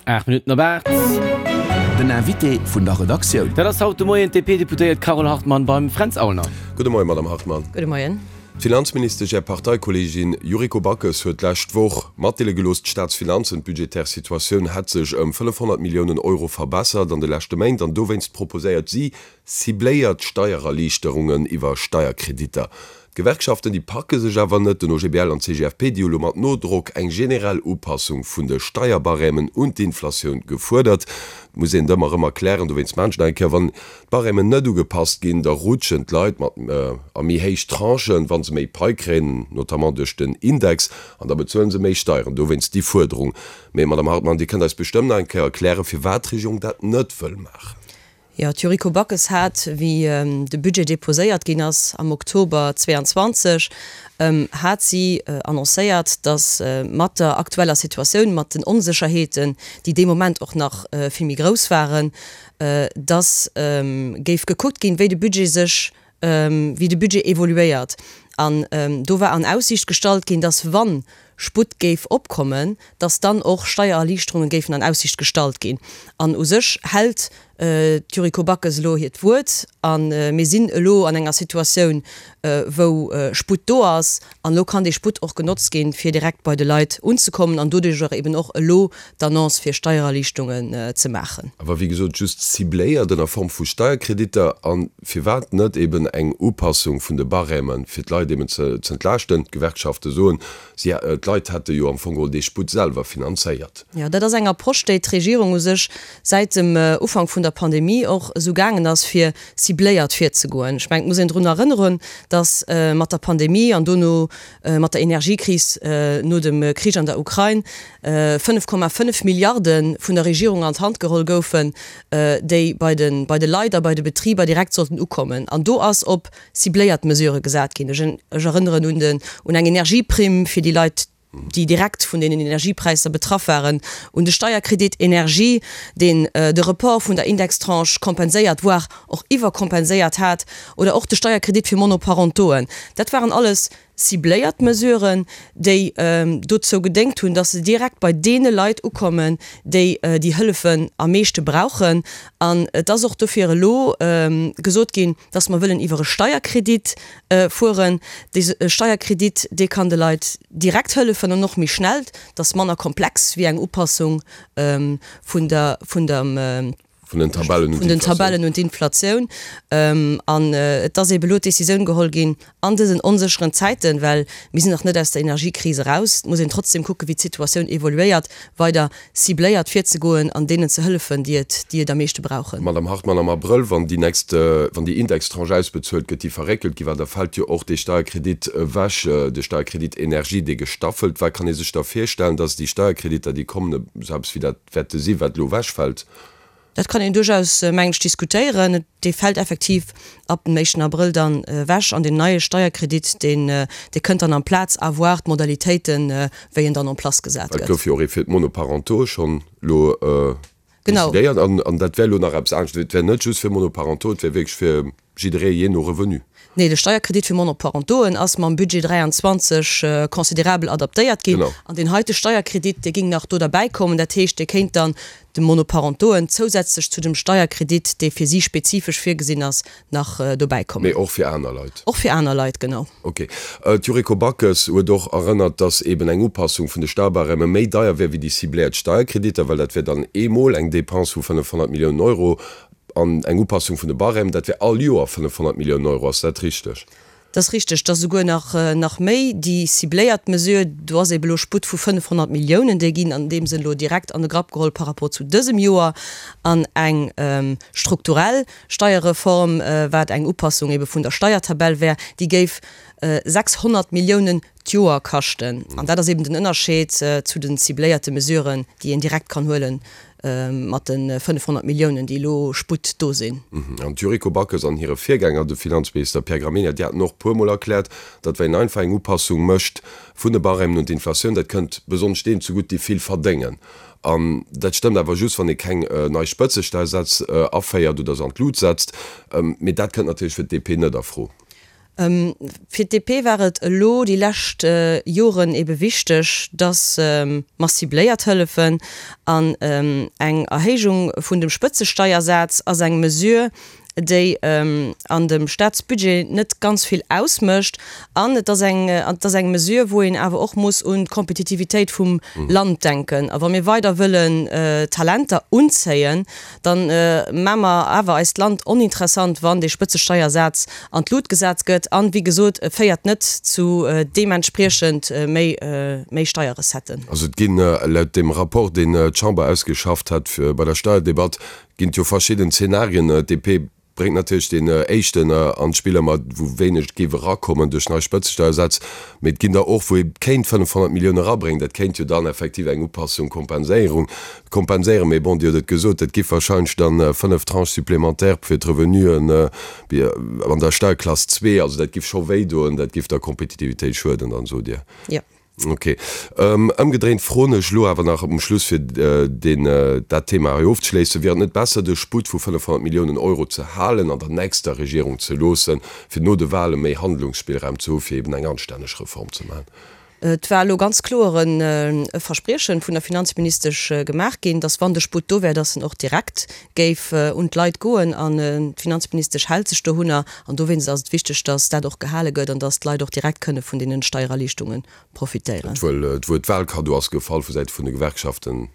8 Minutten op 8. Den Invité vun der Redaktioun. Dat ass haut de Moien d'DP-Deputéiert Carole Hartmann beim Fränz Aulner. Gudde Moien, Madamm Hartmann. Gudde Moien. D'Finanzministesch, Är Parteikolleegin Yuriko Backes huet d'lescht Woch matdeele gelooss, d'Staatsfinanzen, d'budgetär Situatioun hätt sech ëm 500 Milliounen Euro verbessert an de leschte Méint an dowéinst proposéiert si cibléiert Steiererliichterungen iwwer Steierkreditter. D'Gewerkschaften, déi packe sech awer net. Den OGBL an d'CGFP, déi hu lo mat Nodrock eng generell Upassung vun de Steierbarèmen un d'Inflatioun gefuerdert. Et muss een et ëmmer erëm erklären, dowéinst maachen ech nach eng Kéier, Wann d'Barèmen net ugepasst ginn, da rutschen d'Leit mat a méi héich Tranchen, wa se méi Pai kréien, notamment duerch den Index, an da bezuele se méi Steieren. Dowéinst déi Fuerderung. Mee, Madamm Hartmann, Dir kënnt eis bestëmmt nach eng Kéier erklären, firwat d'Regierung dat net wëll maachen. Jo, d'Yuriko Backes hat, wéi de Budget deposéiert ginn ass am Oktober 22, hat si annoncéiert, datt mat der aktueller Situatioun, mat den Onsécherheeten, déi dee Moment och nach vill méi grouss waren, datt géif gekuckt ginn, wéi de Budget sech, wéi de Budget evoluéiert. An do war an Aussiicht gestallt ginn, datt wann Sputt géif opkommen, datt dann och Steiererliichterunge géifen an Aussiicht gestallt ginn. An u sech hält d'Yuriko Backes elo hiert Wuert a mir sinn elo an enger Situatioun, wou Sputt do ass. An elo kann dee Sputt och genotzt ginn, fir direkt bei de Leit unzekommen an doduerch eben och elo d'Annonce fir Steiererliichtungen ze maachen. Awer wéi gesot just cibléiert ënner Form vu Steierkreditter. A firwat net eben eng Upassung vun de Barèmen, fir d'Leit eben ze entlaaschten? D'Gewerkschafte soen, si, d'Leit hätte jo am Fong geholl dee Sputt selwer finanzéiert. Jo, dat ass eng Approche, déi d'Regierung u sech säit dem Ufank vun der Pandemie och esou gaangen ass, fir cibléiert virzegoen. Ech mengen, et muss een drun erënneren, datt mat der Pandemie an dono mat der Energiekris no dem Krich an der Ukrain 5,5 Milliarde vun der Regierung an d'Hand geholl goufen, déi bei de bei de Leit a bei de Betriber direkt sollten ukommen. An do ass op cibléiert Mesurë gesat ginn. Ech erënneren un den un eng Energieprimm fir déi Leit, déi direkt vun deenen Energiepräisser betraff waren, un de Steierkredit Energie, deen de Report vun der Indextranche kompenséiert, voire och iwwerkompenséiert hat, oder och de Steierkredit fir Monoparentoen. Dat waren alles cibléiert Mesuren, déi dozou gedéngt hunn, dass se direkt bei deene Leit ukommen, déi déi Hëllefen am meeschte brauchen. An et ass och dofir elo gesot ginn, dass mer wëllen iwwer e Steierkredit fueren. Dee Steierkredit, dee kann de Leit direkt hëllefen an och méi schnell. Dat ass manner komplex wéi eng Upassung vun der, vun dem, Vun den Tabellen un vun den Tabellen un d'Inflatioun. An et ass eebe elo d'Decisioun geholl ginn, an dësen onsécheren Zäiten, well mir sinn nach net aus der Energiekris eraus, et muss een trotzdem kucken, wéi d'Situatioun evoluéiert, weider cibléiert virzegoen an deenen ze hëllefen, déi et, déi et am meeschte brauchen. Madamm Hartmann, am Abrëll, wann déi nächst, wann déi Indextranche ausbezuelt gëtt, déi verréckelt gi war, da fält jo och dee Steierkredit ewech, de Steierkredit Energie, dee gestaffelt war. Kann ee sech da virstellen, dass déi Steierkreditter, déi kommen, esou eppes wéi dat wäerte si wat elo ewechfält? Dat kann een duerchaus, mengen ech, diskutéieren. Dee fält effektiv ab dem éischten Abrëll dann ewech an deen neie Steierkredit, deen, dee kënnt dann amplaz, à voir d'Modalitéiten, wéi en dann en place gesat gëtt. Et gouf jo och ee fir d'Monoparentaux schonn elo decidéiert an dat wär elo nach eppes anescht. Et wär net just fir Monoparentaux, et wär wierklech fir jidderee jee no Revenu. Nee, de Steierkredit fir Monoparentoen ass mam Budget 23 considerabel adaptéiert ginn. An deen heite Steierkredit, dee géing nach do derbäi kommen. Dat heescht, dee kéint dann de Monoparentoen zousätzlech zu dem Steierkredit, dee fir si spezifesch virgesinn ass, nach dobäi kommen. Mee och fir aner Leit? Och fir aner Leit, genau. Ok. D'Yuriko Backes huet och erënnert, datt eben eng Upassung vun de Steierbarème méi deier wär wéi déi cibléiert Steierkreditter, well dat wär dann eemol eng Dépense vu 500 Milliounen Euro An eng Upassung vun de Barèmen, dat wär all Joer 500 Milliounen Euro. Ass dat richteg? Dat ass richteg. Dat ass esouguer nach, nach méi. Déi cibléiert Mesure, do ass ebe lo Sputt vu 500 Milliounen, déi ginn an deem Sënn elo direkt an de Grapp geholl par rapport zu dësem Joer. An eng strukturell Steierreform, wat eng Upassung ebe vun der Steiertabell wär, déi géif 600 Milliounen d'Joer kaschten. An dat ass eben den Ënnerscheed zu den cibléierte Mesuren, déi een direkt kann huelen mat de 500 Milliounen, déi elo Sputt do sinn. An d'Yuriko Backes an hire Virgänger, de Finanzminister Pierre Gramegna, déi haten och puermol erkläert, datt wa een einfach eng Upassung mécht vun de Barèmen un d'Inflatioun, dat kënnt besonnesch deenen zegutt, déi vill verdéngen. An dat stëmmt awer just, wann ee keng nei Spëtzesteiersätz aféiert oder se an d'Lut setzt. Mee dat kënnt natierlech fir d'DP net a Fro. Fir d'DP war et elo déi lescht Joren ebe wichteg, datt mer cibléiert hëllefen. An eng Erhéijung vun dem Spëtzesteiersaz ass eng Mesure, déi an dem Staatsbudget net ganz vill ausmécht. An et ass eng, et ass eng Mesure, wou een awer och muss un d'Kompetitivitéit vum Land denken. A wa mir weider wëllen Talenter unzéien, Dann maa mer awer eist Land oninteressant, wann dee Spëtzesteiersaz an d'Lut gesat gëtt. An, wéi gesot, e féiert net zu deementspriechend méi méi Steierrecetten. Also et ginn, laut deem Rapport, deen d'Chamber ausgeschafft hat bei der Steierdebatt, ginn et jo verschidden Zenarien. DP Bréngt natierlech deen éischten an d'Spill ëmmer, wou wéineg géif erakommen duerch nei Spëtzesteiersätz, mee et ginn der och, wou ee kéint 500 Millioune erabréngen. Dat kéint jo dann effektiv eng Upassung, Kompenséierung kompenséieren. Mee bon, Dir hutt et gesot, dat giff wahrscheinlech dann 5 Tranches supplémentaires fir d'Revenuen an der Steierklass zwee, also dat giff scho wéidoen, dat giff der Kompetitivitéit schueden dann, sot Dir. Jo. Ok. Ëmgedréint froen ech elo awer nach um Schluss, fir deen, dat Thema hei ofzeschléissen, Wier et net besser, de Sputt vu 500 Milliounen Euro ze halen an der nächster Regierung ze loossen, fir no de Wahle méi Handlungsspillraum ze hu fir eben eng anstänneg Reform ze maachen? Et war elo ganz kloer e Verspriechen vun der Finanzministesch gemaach ginn, dass wann de Sputt do wär, dass en och direkt géif un d'Leit goen. An d'Finanzministesch hält sech dohunner. An dowéinst ass et wichteg, dass dat och gehale gëtt an dass d'Leit och direkt kënne vun deenen Steiererliichtunge profitéieren. D'Wuert Wahlkaddo ass gefall vu Säite vun de Gewerkschaften.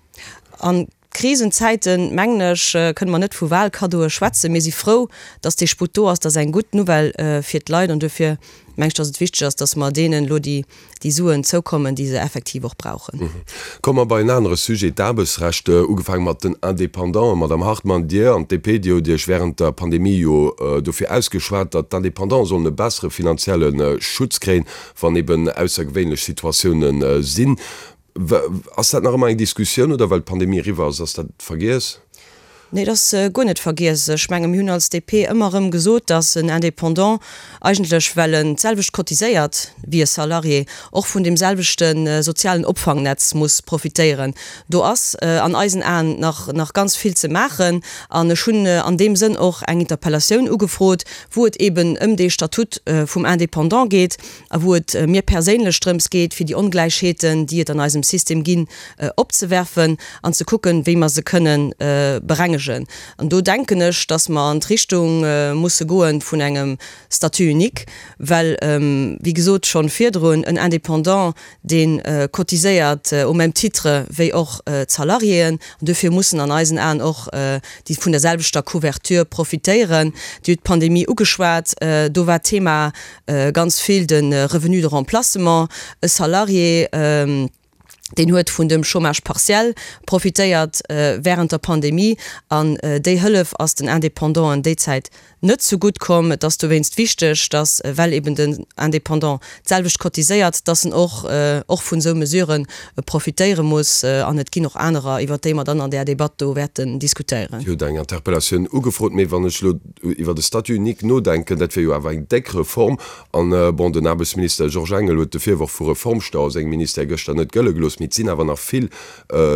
A Krisenzäiten, mengen ech, kënne mer net vu Wahlkaddoe schwätzen. Mir si frou, dass dee Sputt do ass. Dat ass eng gutt Nouvelle fir d'Leit. An duerfir mengen ech, dass et wichteg ass, dass mer deenen elo déi déi Suen zoukommen, déi se effektiv och brauchen. Komme mer bei en anere Sujet, d'Aarbechtsrecht, ugefaange mat den Indépendanten. Madamm Hartmann, Dir an d'DP, Dir hutt Iech während der Pandemie jo dofir ausgeschwat, datt d'Indépendante sollen e bessere finanzielle Schutz kréien, wann eben aussergewéinlech Situatiounen sinn. Ass dat nach ëmmer eng Diskussioun oder well d'Pandemie eriwwer ass, ass dat vergiess? Nee, et ass guer net vergiess. Ech menge mir hunn als DP ëmmer erëm gesot, datt en Indépendant eigentlech, well en d'selwecht cotiséiert wéi e Salarié, och vun deem selwechte sozialen Opfangnetz muss profitéieren. Do ass an eisen Aen nach nach ganz vill ze maachen. An ech hunn an deem Sënn och eng Interpellatioun ugefrot, wou et eben ëm dee Statut vum Indépendant geet a wou et mir perséinlech drëms geet, fir déi Ongläichheeten, déi et an eisem System ginn, opzewerfen an ze kucken, wéi mer se kënnen berengegen. An do denken ech, dass mer an d'Richtung musse goe vun engem Statut unique, well, wéi gesot schonn virdrun, en Indépendant, dee cotiséiert au même titre wéi och d'Salariéen, an duerfir mussen an eisen Aen och déi vun der selwechter Couverture profitéieren. Dir hutt d'Pandemie ugeschwat, do war d'Thema ganz vill de Revenu de remplacement. E Salarié, deen huet vun dem Chômage partiel profitéiert während der Pandemie an déi Hëllef ass den Indépendanten déi Zäit net zu gutt komm. Et ass dowéinst wichteg, dass, well eben den Indépendant d'selwecht cotiséiert, dass en och och vun esou Mesurë profitéiere muss. An et ginn och anerer, iwwert déi mer dann an där Debatt do wäerten diskutéieren. Dir hutt eng Interpellatioun ugefrot, mee wann ech elo iwwer de Statut unique nodenken, dat wier jo awer eng déck Reform. An, bon, den Aarbechtsminister Georges Engel huet de Virworf vu Reformstau a sengem Ministère gëschter net gëlle gelooss, mee et sinn awer nach vill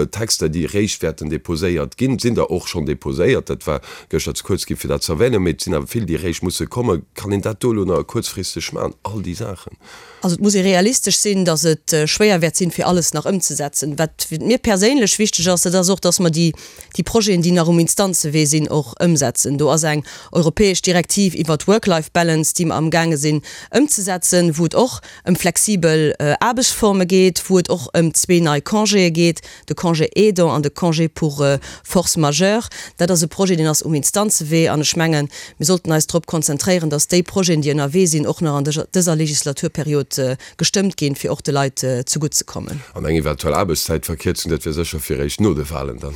Texter, déi eréischt wäerten deposéiert ginn. Et sinn der och schonn deposéiert, dat war gëschter ze kuerz gi fir dat ze erwänen, mee et sinn awer vill, déi eréischt musse kommen. Kann een dat do elo nach kuerzfristeg maachen, all déi Saachen? Also et muss ee realistesch sinn, datt et schwéier wäert sinn, fir alles nach ëmzesetzen. Wat mir perséinlech wichteg ass, dat ass och, datt mer déi déi Projeten, déi nach um Instanzewee sinn, och ëmsetzen. Do ass eng europäesch Direktiv iwwert d'Work-Life-Balance, déi mer amgaange sinn ëmzesetzen, wou et och ëm flexibel Aarbechtsforme geet, wou et och ëm zwee nei Congéë geet, de Congé aidant an de Congé pour force majeure. Dat ass e Projet, deen ass um Instanzewee an ech mengen, mir sollten eis drop konzentréieren, dass déi Projeten, déi ënnerwee sinn, och nach an dëser Legislaturperiod gestëmmt ginn, fir och de Leit zegutt ze kommen. An eng eventuell Aarbechtszäitverkierzung, dat wier sécher fir eréischt no de Wahlen dann.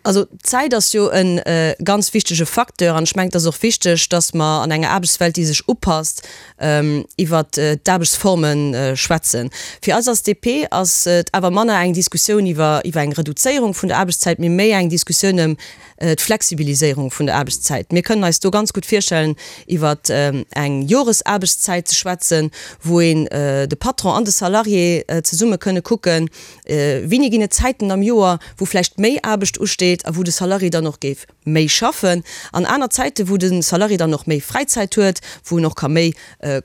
Also d'Zäit ass jo e ganz wichtege Facteur an ech mengen, et ass och wichteg, dass mer an enger Aarbechtswelt, déi sech upasst, iwwert d'Aarbechtsforme schwätzen. Fir eis als DP ass et awer manner eng Diskussioun iwwer eng Reduzéierung vun der Aarbechtszäit, mee méi eng Diskussioun ëm d'Flexibiliséierung vun der Aarbechtszäit. Mir kënnen eis do ganz gutt virstellen, iwwer eng Joresaarbechtszäit ze schwätzen, wou een de Patron an de Salarié zesumme kënne kucken, wéini ginn et Zäiten am Joer, wou vläicht méi Aarbecht usteet. geet a wou de Salarié dann och géif méi schaffen, an aner Zäiten, wou de Salarié dann och méi Fräizäit huet, wou en och ka méi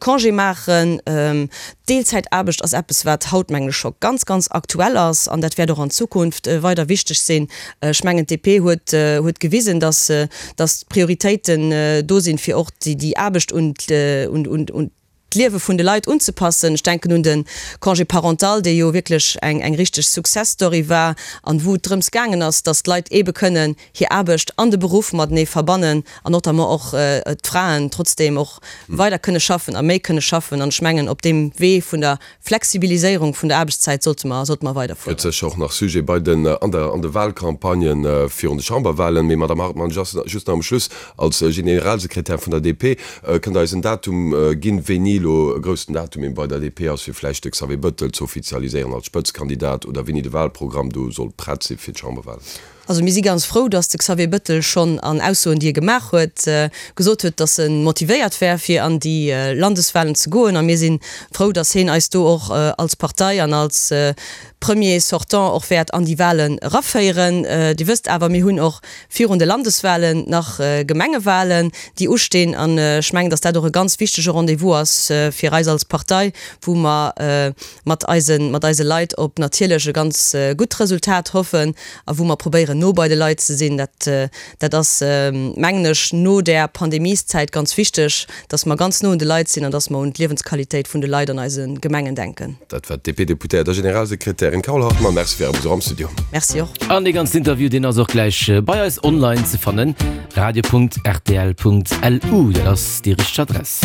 Congé maachen. D'Deelzäitaarbecht ass eppes, wat haut, mengen ech, scho ganz, ganz aktuell ass an dat wäert och an Zukunft weider wichteg sinn. Ech mengen, d'DP huet, huet gewisen, dass, dass d'Prioritéiten do sinn, fir och déi Aarbecht un, un, un d'Liewe vun de Leit unzepassen. Ech denken un de Congé parental, dee jo wierklech eng, eng richteg Success Story war an wou et drëms gaangen ass, dass d'Leit eebe kënnen hir Aarbecht an de Beruff matenee verbannen an notamment och d'Fraen trotzdeem och weider kënne schaffen a méi kënne schaffen. An ech mengen, op deem Wee vun der Flexibiliséierung vun der Aarbechtszäit sollte mer, sollte mer weiderfueren. Gëtt sécher och nach Sujet bei den, an der, an de Wahlcampagnë virun de Chamberwahlen. Mee Madamm Hartmann, just, just nach um Schluss, als Generalsekretär vun der DP, kënnt Der eis en Datum ginn, wéini elo e groussen Datum eben bei der DP ass, fir vläicht de Xavier Bëttel ze offizialiséieren als Spëtzekandidat oder wéini de Wahlprogramm do soll prett si fir d'Chamberwahlen? Also mir si ganz frou, datt de Xavier Bëttel schonn an Aussoen, déi e gemaach huet, gesot huet, datt e motivéiert wär, fir an déi Landeswahlen ze goen. A mir si frou, datt heen eis do och als Partei an als Premier sortant och wäert an déi Wahlen eraféieren. Dir wësst awer, mir hunn och virun de Landeswahlen nach Gemengewahlen, déi ustinn. An ech mengen, datt dat och e ganz wichtege Rendez-vous ass fir eis als Partei, wou mer mat eise mat eise Leit op natierlech e ganz gutt Resultat hoffen a wou mer probéieren no bei de Leit ze sinn. Dat dat ass, mengen ech, no där Pandemieszäit ganz wichteg, dass mer ganz no un de Leit sinn an dass mer un d'Liewensqualitéit vun de Leit an eise Gemengen denken. Dat war d'DP-Deputéiert a Generalsekretärin Carole Hartmann. Merci fir Äre Besuch am Studio. Merci och. An dee ganzen Interview, deen ass och gläich bei eis online ze fannen, radio.rtl.lu, dat ass déi richteg Adress.